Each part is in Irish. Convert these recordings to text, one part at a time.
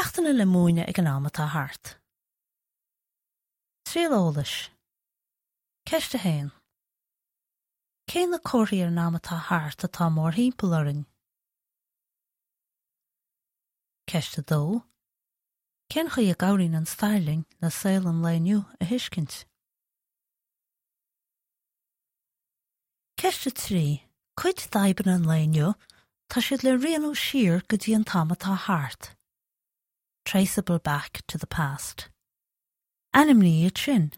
Ceachtanna le múineadh ag an am atá thart. Triail eolais. Ceist 1. Cé na comharthaí ar an am atá thart atá mórthimpeall orainn? Ceist 2. Cén chaoi a gcabhraíonn an stair linn le saol an lae inniu a thuiscint? Ceist 3. Cuid d'fhadhbanna an lae inniu, tá siad le rianú siar go dtí an t-am atá thart. Traceable back to the past. Ainmnigh iad sin.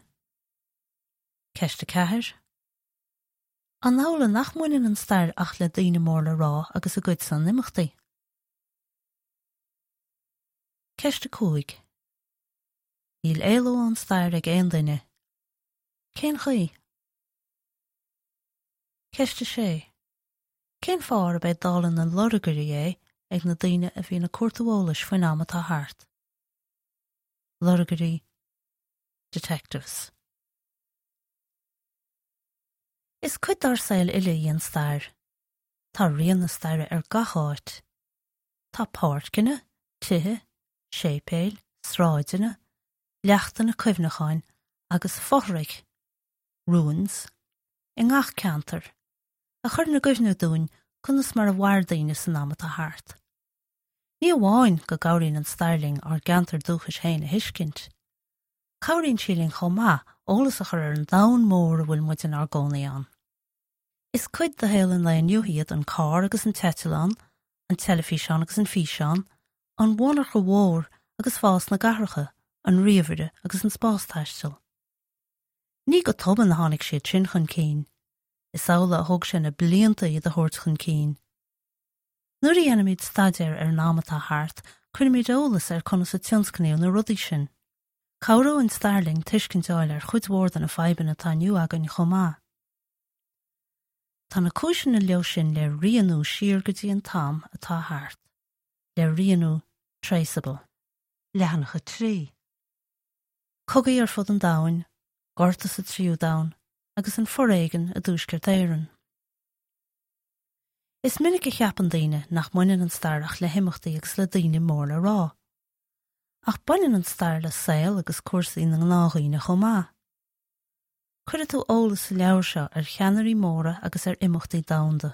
Ceist 4. An amhlaidh nach mbaineann an stair ach le daoine mór le rá agus a gcuidsean imeachtaí? Ceist 5. Níl éaló ón stair ag aon duine. Cén chaoi? Ceist 6. Cén fáth arb é dála na lorgairí é ag na daoine a bhíonn ag cuartú eolais faoin am atá thart? Lorgairí, detectives. Is cuid dár saol uile í an stair. Tá rian na staire ar gach áit. Tá páirceanna, tithe, séipéil, sráideanna, leachtanna cuimhneacháin agus fothraigh, ruins, i ngach ceantar, a chuireann i gcuimhne dúinn conas mar a mhair daoine san am atá thart. Ní amháin go gcabhraíonn an stair linn ár gceantar dúchais féin a thuiscint, cabhraíonn sí linn chomh maith eolas a chur ar an domhan mór a bhfuil muid inár gcónaí ann. Is cuid de shaol an lae inniu iad an carr agus an t-eitleán, an teilifíseán agus an físeán, an mhonarcha mhór agus fás na gcathracha, an ríomhaire agus an spástaisteal. Ní go tobann a tháinig siad sin chun cinn. Is amhlaidh a thóg sé na blianta iad a thabhairt chun cinn. Nuair a dhéanaimid staidéar ar an am atá thart, cuirimid eolas ar conas a tionscnaíodh na rudaí sin. Cabhróidh an stair linn tuiscint a fháil ar chuid mhór de na fadhbanna atá inniu againn chomh maith. Tá na cúiseanna leo sin le rianú siar go dtí an t-am atá thart. Le rianú traceable. Leathanach 3. Cogaí ar fud an domhain, gorta sa Tríú Domhan, agus an foréigean i dTuaisceart Éireann. Is minic a cheapann daoine nach mbaineann an stair ach le himeachtaí agus le daoine mór le rá. Ach baineann an stair le saol agus cúrsaí na ngnáthdhaoine chomh maith. Cuirfidh tú eolas sa leabhar seo ar cheannairí móra agus ar imeachtaí domhanda.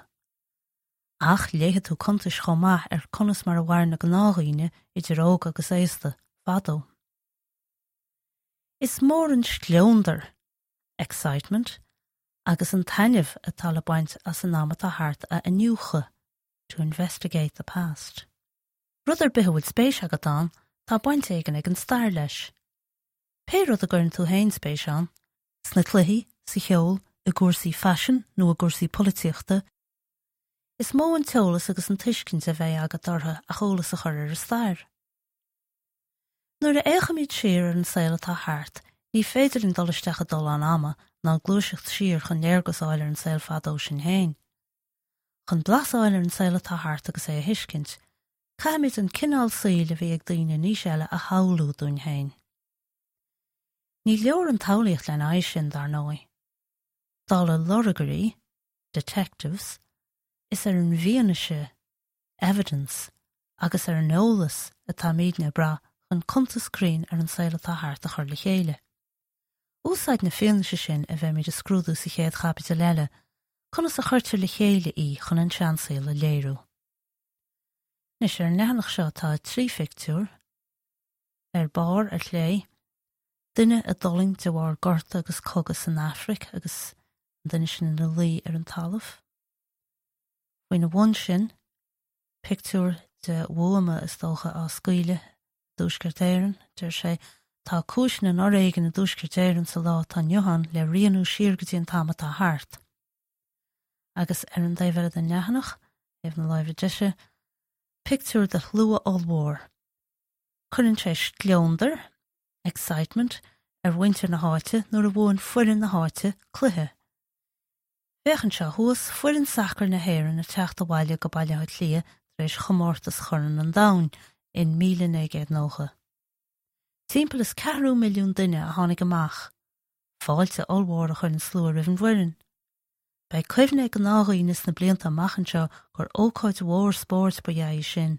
Ach léifidh tú cuntais chomh maith ar conas mar a mhair na gnáthdhaoine, idir óg agus aosta, fadó. Is mór an scleondar, excitement, agus an taitneamh atá le baint as an am atá thart a iniúchadh, to investigate the past. Rud ar bith a bhfuil spéis agat ann, tá baint éigin ag an stair leis. Pé rud a gcuireann tú féin spéis ann, sna cluichí, sa cheol, i gcúrsaí faisin nó i gcúrsaí polaitíochta, is mó an t-eolas agus an tuiscint a bheidh agat orthu ach eolas a chur ar an stair. Nuair a fhéachaimid siar ar an saol atá thart, ní féidir linn dul isteach i dtollán ama ná gluaiseacht siar chun léargas a fháil ar an saol fadó sin féin. Chun blas a fháil ar an saol atá thart agus é a thuiscint, caithfimid an cineál saoil a bhí ag daoine in aois eile a shamhlú dúinn féin. Ní leor an tsamhlaíocht lena aghaidh sin, dar ndóigh. Dála lorgairí, detectives, is ar an bhfianaise, evidence, agus ar an eolas atáimidne ag brath chun cuntas cruinn ar an saol atá thart a chur le chéile. Úsáid na fianaise sin a bheimid a scrúdú sa chéad chaibidil eile, conas a chuirtear le chéile í chun an seansaol a léiriú. Anois, ar an leathanach seo tá 3 phictiúr. Ar barr, ar chlé, duine a d'fhulaing de bharr gorta agus cogadh san Afraic agus an duine sin ina luí ar an talamh. Faoina bhun sin, pictiúr de bhuama, is dócha, á scaoileadh i dTuaisceart Éireann. Deir sé, Tá cúiseanna an fhoréigin i dTuaisceart Éireann sa lá atá inniu ann le rianú siar go dtí an t-am atá thart. Agus ar an dtaobh eile den leathanach, taobh na láimhe deise, pictiúr de shlua ollmhór. Cuireann sé scleondar, excitement, ar mhuintir na háite nuair a bhuann foireann na háite cluiche. Féach anseo thuas, foireann sacair na hÉireann ag teacht abhaile go Baile Átha Cliath tar éis chomórtas Chorn an Domhain in 1990. Timpeall is ceathrú milliún duine a tháinig amach. Fáilte ollmhór a chuir an slua roimh an bhfoireann. Beidh cuimhne ag gnáthdhaoine sna blianta amach anseo gur ócáid mhór spóirt ba ea í sin.